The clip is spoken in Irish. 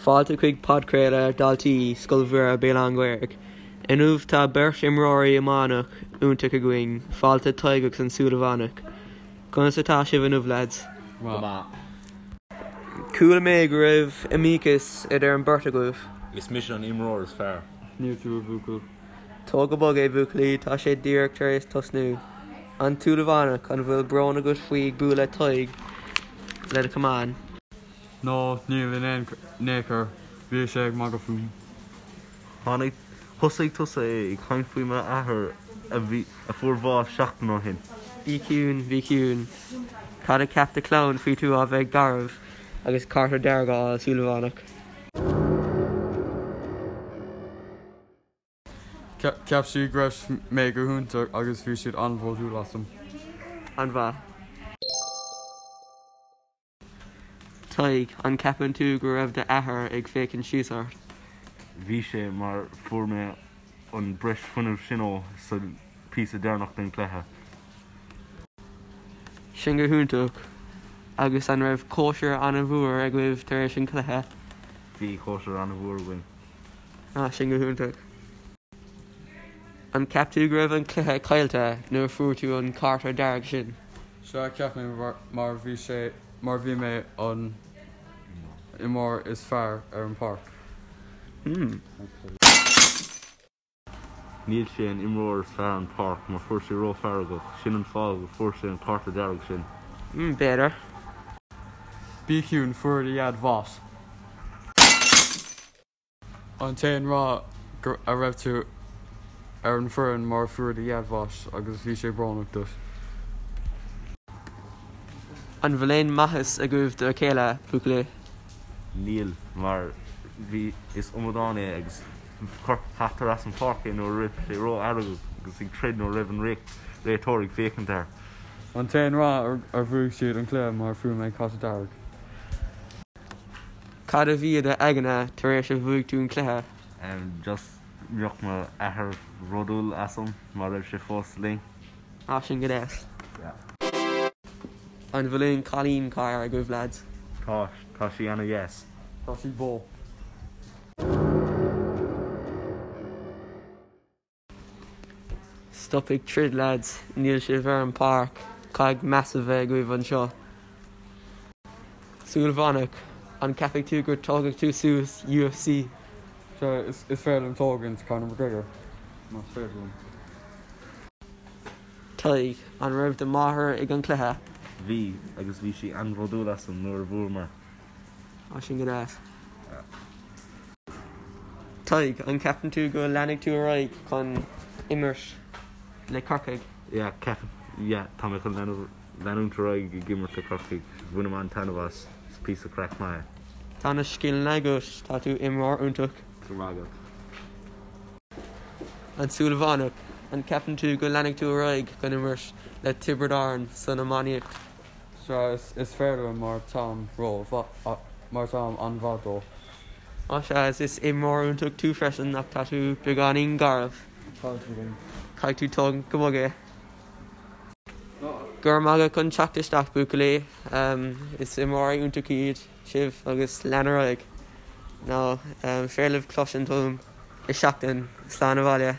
Fáilte chuig podchraoladh Daltaí Scoil Mhuire Béal Átha an Ghaorthaidh. Inniu tá beirt imreoirí iomána iontach againn, fáilte Tadhg agus an Súilleabhánach. Conas atá sibh inniu lads? Go maith. Chuala mé go raibh iomaíochas idir an beirt agaibh. Is mise an imreoir is fearr. Níl tú a bhuachaill. Tóg go bog é buachaillí, tá sé díreach tar éis tosnú. An tSúilleabhánach, an bhfuil brón agat faoi bualadh Tadhg le do chamán? No, níl in aon chor, bhí sé ag magadh fúm. Tháinig, thosaigh tusa é ag caint faoi m'athair a bhí, a fuair bháis seachtain ó shin. Bí ciúin, bí ciúin. Cad a cheap do chlann faoi tú a bheith garbh agus cárta dearg a fháil, Súilleabhánach? Cheap siad go raibh mé go hiontach agus bhí siad an-bhródúil asam. An-mhaith. Tadhg, An gceapann tú go raibh d'athair ag féachaint síos ort? Bhí sé, mar fuair mé an breis fuinnimh sin ó sa píosa deireanach den cluiche. Sin go hiontach. Agus an raibh cóisir an-mhór agaibh tar éis an chluiche? Bhí cóisir an-mhór againn. Ah, sin go hiontach. An gceap tú go raibh an cluiche caillte nuair a fuair tú an cárta dearg sin? Sea, cheap mé mar bhí sé mar bhí mé an imreoir is fearr ar an páirc. Hmm. Níl sé an imreoir is fearr an páirc mar fuair sé ró-fheargach, sin an fáth go fuair sé an cárta dearg sin. Hmm, b'fhéidir. Bí ciúin, fuair do dhaid bás. An t-aon fáth a raibh tú ar an foireann mar fuair do dhaid bháis agus bhí sé brónach duit. An bhfuil aon mhaitheas agaibh do a chéile, buachaillí? Níl, mar bhí, is amadán é agus cuirtear as an pháirc é nuair a raibh sé ró-fheargach agus ag troid nuair a raibh an réiteoir ag féachaint air. An t-aon fáth ar bhuaigh siad an cluiche mar fuair mé cárta dearg. Cad a bhí i do aigne tar éis a bhuaigh tú an cluiche? Just mbeadh mo athair bhródúil asam má raibh sé fós linn. Ah, sin go deas. Yeah. An bhfuil aon cailín cara agaibh lads? Tá, tá sí ana dheas. Tá sí bó. Stop ag troid lads, níl sibh ar an páirc, caithfidh meas a bheith agaibh anseo. Súilleabhánach, an gceapfaidh tú gur tógfaidh tú suas UFC? Sea, is féidir liom tógaint Conor McGregor, más féidir liom. Tadhg, an raibh do mháthair ag an cluiche? Bhí, agus bhí sí an-bhródúil asam nuair a bhuamar. Á, sin go deas. Tadhg, an gceapann tú go leanfaidh tú ar aghaidh chun imirt le Corcaigh? Yeah, ceapaim, yeah, tá mé chun leanúint ar aghaidh ag imirt le Corcaigh. Bhainim an-taitneamh as, is píosa craic maith é. Tá na scileanna agat, tá tú imreoir iontach. Go raibh maith agat. An Súilleabhánach, an gceapann tú go leanfaidh tú ar aghaidh chun imirt le Tiobraid Árann san iománaíocht? Sea, is féidir liom mar táim ró, mar táim an-mhaith dó. Á sea, is imreoir iontach tú freisin ach tá tú beagáinín garbh. Tá tú linn. Caithfidh tú tógaint go bog é. Go raibh maith agat chun teacht isteach buachaillí. Is imreoirí iontach iad sibh agus lean ar aghaidh. Nó féidir libh cloisint uaim i seachtain. Slán abhaile.